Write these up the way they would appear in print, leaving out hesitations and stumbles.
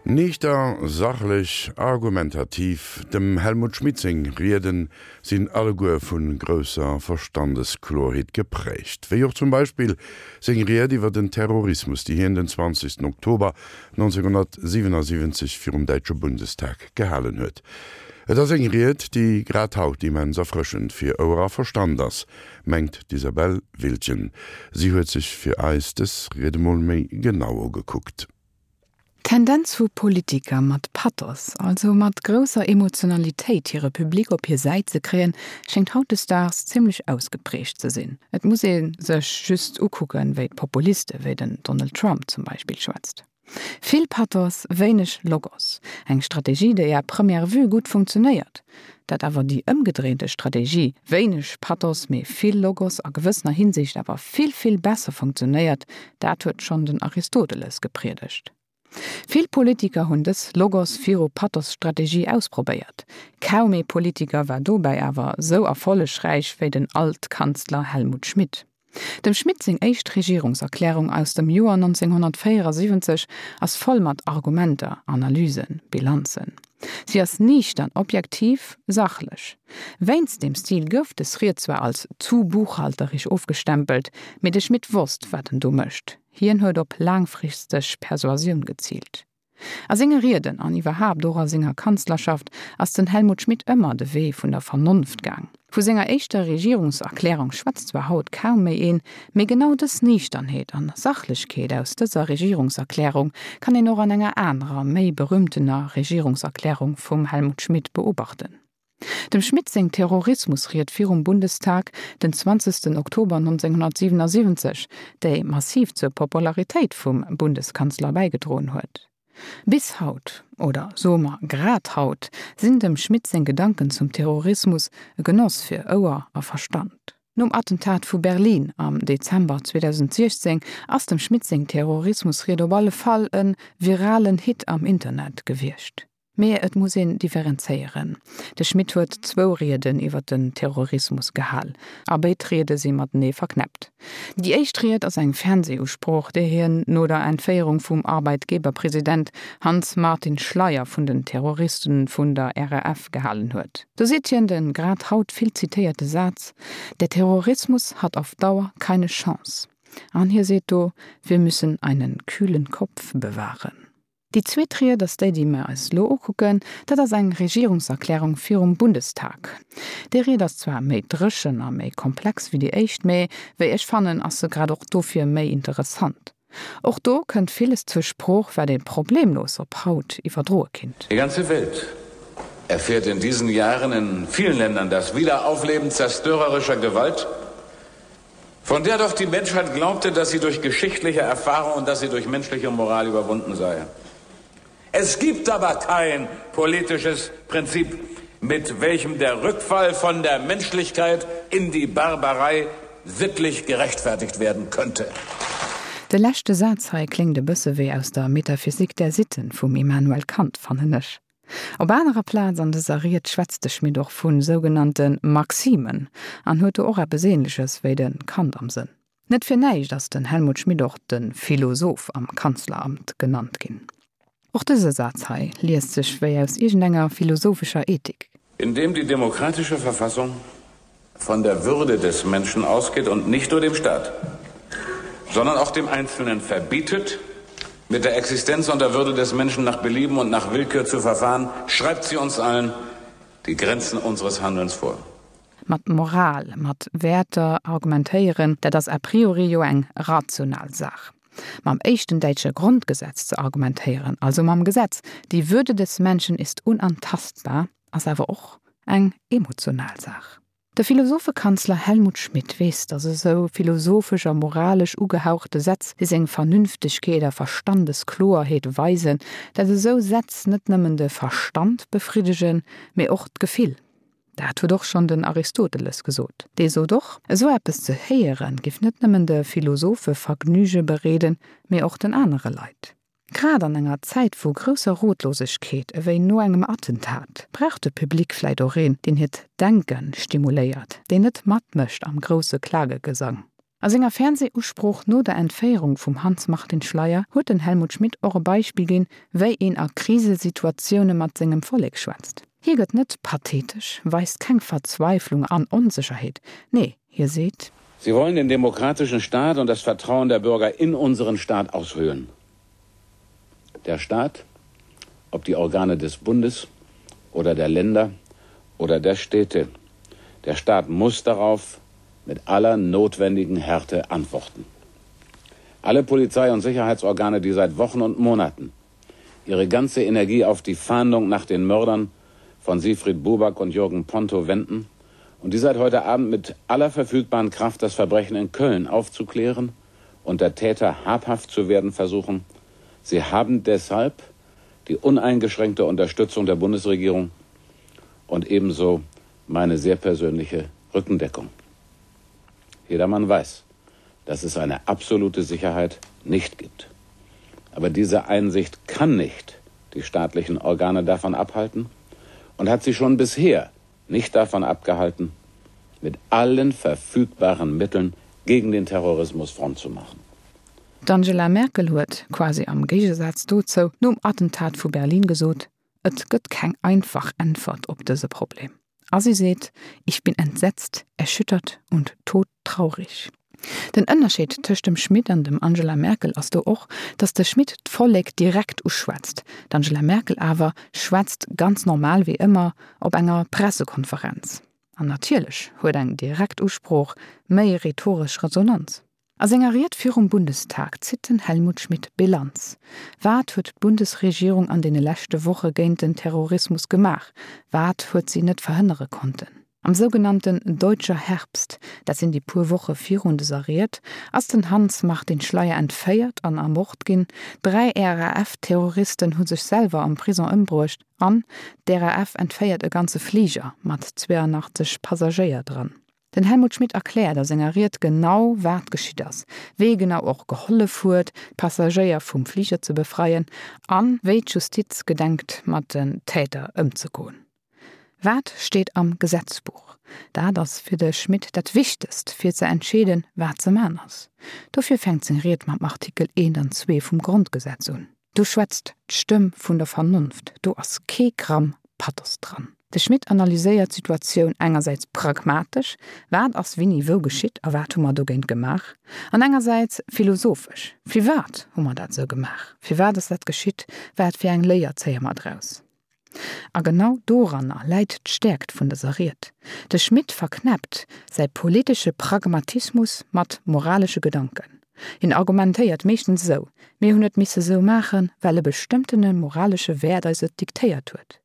Niichter, sachlech, argumentativ, dem Helmut Schmidt seng Rieden sinn alleguer vu grousser Verstandesklorheet geprägt. Wéi och zum Beispill seng Ried iwwer den Terrorismus, déi hien den 20 Oktober 1977 virum däitsche Bundestag gehalen huet. Et ass eng Ried, déi grad haut immens erfrëschend fir Ouer a Verstand ass, mengt d'Isabelle Wiltgen. Si huet sech fir eis dës Ried emol méi genau ugekuckt. D'Tendenz vu Politiker mat Pathos, also mat grousser Emotionalitéit hire Public op hir Säit ze kréien, schéngt hautdesdaags zimmlech ausgeprägt ze sinn. Et muss ee sech just ukucken, wéi d'Populiste wéi den Donald Trump zum Beispill schwätzt. Vill Pathos, wéineg Logos. Eng Strategie, déi à première vue gutt funktionéiert. Dat awer déi ëmgedréinte Strategie, wéineg Pathos, mee vill Logos, a gewëssener Hinsicht awer vill, vill besser funktionéiert, dat huet schonn den Aristoteles gepriedegt. Vill Politiker hunn dës Logos viru Pathos-Strategie ausprobéiert. Kaum ee Politiker war dobäi awer sou erfollegräich wéi den Altkanzler Helmut Schmidt. Dem Schmidt seng éischt Regierungserklärung aus dem Joer 1974 ass voll mat Argumenter, Analysen, Bilanzen. Si ass niichtern, objektiv, sachlech. Wéinst deem Stil gouf des Ried zwar als zu buchhalterisch ofgestempelt, mee de Schmidt wosst, wat en do mécht. Hien huet op laangfristeg Persuasioun geziilt. A senge Rieden an iwwerhaapt och a senger Kanzlerschaft ass den Helmut Schmidt ëmmer de Wee vun der Vernonft gaang. Vu senger éischter Regierungserklärung schwätzt zwar haut kaum méi een, mee genau dës Niichternheet an Sachlechkeet aus dëser Regierungserklärung kann een och an enger anerer, méi berühmtener Regierungserklärung vum Helmut Schmidt beobachten. Dem Schmidt seng Terrorismusried virum Bundestag den 20 Oktober 1977, déi massiv zur Popularitéit vum Bundeskanzler bäigedroen huet. Bis haut, oder soe mer grad haut, sinn dem Schmidt seng Gedanken zum Terrorismus e Genoss fir Ouer a Verstand. Nom Attentat vu Berlin am Dezember 2016 ass dem Schmidt seng Terrorismusried op alle Fall e viralen Hit am Internet gewiescht. Mee et muss een differenzéieren. De Schmidt huet zwou Rieden iwwer den Terrorismus gehal, a béid Riede si matenee verknäppt. Déi éischt Ried ass eng Fernsehusprooch, déi hien no der Entféierung vum Arbeitgeberpresident Hanns Martin Schleyer vun den Terroristen vun der RAF gehalen huet. Do seet hien de grad haut vill zitéierte Saz, Der Terrorismus hat auf Dauer keine Chance. An hie seet do, Wir müssen einen kühlen Kopf bewahren. Déi zweet Ried ass déi, déi mer eis elo ukucken. Dat ass eng Regierungserklärung virum Bundestag. Déi Ried ass zwar méi dréchen a méi komplex wéi déi éischt, mä wéi ech fannen, ass se grad och dofir méi interessant. Och do kënnt villes zur Sprooch, wat ee problemlos op haut iwwerdroe kinnt. Die ganze Welt erfährt in diesen Jahren in vielen Ländern das Wiederaufleben zerstörerischer Gewalt, von der doch die Menschheit glaubte, dass sie durch geschichtliche Erfahrung und dass sie durch menschliche Moral überwunden sei. Es gibt aber kein politisches Prinzip, mit welchem der Rückfall von der Menschlichkeit in die Barbarei sittlich gerechtfertigt werden könnte. De leschte Saz hei kléngt e bësse wéi aus der Metaphysik der Sitten vum Immanuel Kant, fannen ech. Op anerer Plaz an dëser Ried schwätzt de Schmidt och vu sougenannte Maximen an huet do och eppes Ähnleches wéi de Kant am Sënn. Net fir näischt ass den Helmut Schmidt och de Philosoph am Kanzleramt genannt ginn. Och dëse Saz hei liest sech wéi aus iergendenger philosophescher Ethik. Indem die demokratische Verfassung von der Würde des Menschen ausgeht und nicht nur dem Staat, sondern auch dem Einzelnen verbietet, mit der Existenz und der Würde des Menschen nach Belieben und nach Willkür zu verfahren, schreibt sie uns allen die Grenzen unseres Handelns vor. Mat Moral, mat Wäerter argumentéieren, dat ass a priori jo eng rational Saach. Mam éischten däitsche Grondgesetz ze argumentéieren, also mam Gesetz Die Würde des Menschen ist unantastbar, ass awer och eng emotional Saach. De Philosophekanzler Helmut Schmidt weess, datt esou philosophesch a moralesch ugehauchte Sätz, déi seng Vernünftegkeet a Verstandeskloerheet weisen, datt esou Sätz net nëmmen de Verstand befriddegen, mee och d'Gefill. Dat huet och schonn den Aristoteles gesot. Dee sot och, esou eppes ze héieren, giff net nëmmen de Philosophe Vergnüge bereeden, mee och den anere Leit. Grad an enger Zäit vu grousser Rotlosegkeet, ewéi no engem Attentat, brauch de Public vläit och een, deen hiert Denke stimuléiert, deen net matmécht am grousse Klagegesang. A senger Fernseh-Usprooch no der Entféierung vum Hanns Martin Schleyer huet den Helmut Schmidt och e Beispill ginn, wéi een a Krisesituatioune mat sengem Vollek schwätzt. Hie gëtt net pathetesch, weist keng Verzweiflung an Onsécherheet, nee, hie seet. Sie wollen den demokratischen Staat und das Vertrauen der Bürger in unseren Staat aushöhlen. Der Staat, ob die Organe des Bundes oder der Länder oder der Städte, der Staat muss darauf mit aller notwendigen Härte antworten. Alle Polizei- und Sicherheitsorgane, die seit Wochen und Monaten ihre ganze Energie auf die Fahndung nach den Mördern von Siegfried Buback und Jürgen Ponto wenden und die seit heute Abend mit aller verfügbaren Kraft das Verbrechen in Köln aufzuklären und der Täter habhaft zu werden versuchen. Sie haben deshalb die uneingeschränkte Unterstützung der Bundesregierung und ebenso meine sehr persönliche Rückendeckung. Jedermann weiß, dass es eine absolute Sicherheit nicht gibt. Aber diese Einsicht kann nicht die staatlichen Organe davon abhalten und hat sie schon bisher nicht davon abgehalten, mit allen verfügbaren Mitteln gegen den Terrorismus Front zu machen. D'Angela Merkel huet, quasi am Géigesaz dozou, nom Attentat vu Berlin gesot, Et gëtt keng einfach Äntwert op dëse Problem. A si seet, Ich bin entsetzt, erschüttert und todtraurig. Den Ënnerscheed tëscht dem Schmit an dem Angela Merkel ass do och, datt de Schmit d'Vollek direkt uschwätzt, d'Angela Merkel awer schwätzt ganz normal wéi ëmmer op enger Pressekonferenz. An natierlech huet eng direkt Usprooch méi rhetoresch Resonanz. A senger Ried virum Bundestag zitt den Helmut Schmidt Bilanz. Wat huet d'Bundesregierung an deene leschte Woche géint den Terrorismus gemaach? Wat huet si net verhënnere konnten? Am sougenannten Deutscher Herbst, dat sinn déi puer Woche virun dëser Ried, ass den Hanns Martin Schleyer entféiert an ermort ginn, 3 RAF-Terroristen hu sech selwer am Prison ëmbruecht an d'RAF entféiert e ganze Fliger mat 82 Passagéier dran. Den Helmut Schmidt erkläert a senger Ried genau, wat geschitt ass, wee genau och gehollef huet, d'Passagéier vum Fliger ze befreien a wéi d'Justiz gedenkt, mat den Täter ëmzegoen. Wat steet am Gesetzbuch? Dat ass fir de Schmidt dat Wichtegst, fir ze entscheeden, wat ze man ass. Dofir fänkt seng Ried mam Artikel 1 an 2 vum Grondgesetz un. Do schwätzt d'Stëmm vun der Vernonft, do ass kee Gramm Pathos dran. De Schmit analyséiert d'Situatioun engersäits pragmatesch, wat ass wini wou geschitt a wat hu mer dogéint gemaach? An engersäits philosophesch, firwat hu mer dat esou gemaach, firwat ass dat geschitt, wat fir eng Léier zéie mer draus? A genau doranner läit d'Stäerkt vun dëser Ried. De Schmit verknäppt säi politesche Pragmatismus mat moralesche Gedanken. Hien argumentéiert meeschtens esou, Mir hunn et misse sou maachen, well e bestëmmtene moralesche Wäert eis et diktéiert huet.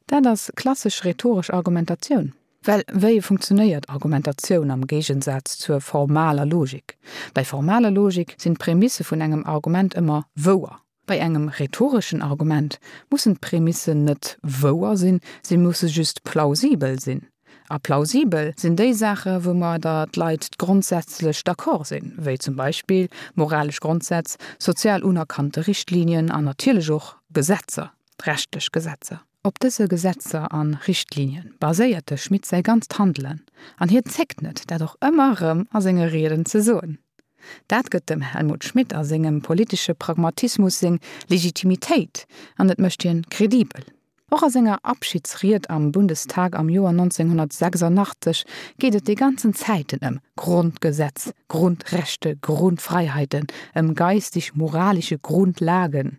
Dat ass klassesch rhetoresch Argumentatioun. Well wéi funktionéiert Argumentatioun am Géigensaz zur formaler Logik? Bei formaler Logik sinn d'Prämisse vun engem Argument ëmmer wouer. Bei engem rhetoreschen Argument mussen d'Prämissen net wouer sinn, se musse just plausibel sinn. A plausibel sinn déi Saache woumadder d'Leit grondsätzlech d'accord sinn, wéi zum Beispill moralesch Grondsätz, sozial unerkannte Richtlinien an natierlech och Gesetzer, rechtlech Gesetzer. Op dëse Gesetzer a Richtlinien baséiert de Schmit säi ganzt Handelen, an hien zéckt net, dat och ëmmer erëm a senge Rieden ze soen. Dat gëtt dem Helmut Schmidt a sengem politesche Pragmatismus seng Legitimitéit an et mécht hien kredibel. Och a senger Abschiedsried am Bundestag am Joer 1986 geet et déi ganzen Zäiten ëm Grondgesetz, Grundrechte, Grundfreiheiten, ëm geistig-moralische Grundlagen.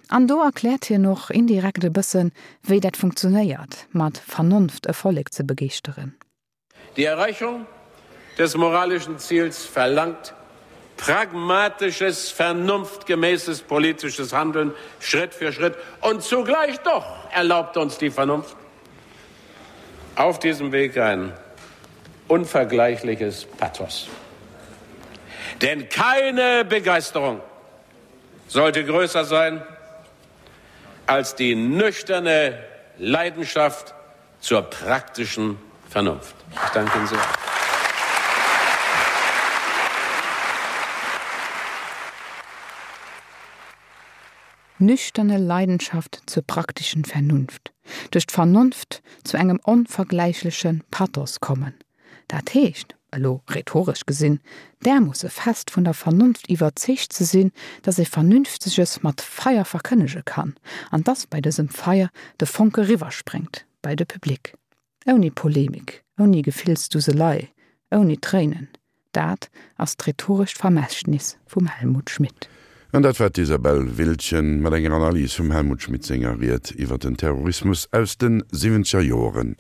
An do erkläert hien och indirekt e bëssen, wéi dat funktionéiert, mat Vernonft e Vollek ze begeeschteren. Die Erreichung des moralischen Ziels verlangt pragmatisches, vernunftgemäßes politisches Handeln Schritt für Schritt und zugleich doch erlaubt uns die Vernunft auf diesem Weg ein unvergleichliches Pathos. Denn keine Begeisterung sollte größer sein als die nüchterne Leidenschaft zur praktischen Vernunft. Ich danke Ihnen sehr. Nüchterne Leidenschaft zur praktischen Vernunft. Duerch d'Vernonft zu engem onvergläichleche Pathos kommen. Dat heescht, elo rhetoresch gesinn, därmoosse fest vun der Vernonft iwwerzeegt ze sinn, dass ee Vernünfteges mat Feier verkënnege kann, an dass bei dësem Feier de Fonke riwwerspréngt bei de Public. Ouni Polemik, ouni Gefillsduselei, ouni Tréinen. Dat ass d'rhetorescht Vermächtnis vum Helmut Schmidt. An dat war d'Isabelle Wildgen mat enger Analys vum Helmut Schmidt senger Ried iwwer den Terrorismus aus de siwwenzeger Joeren.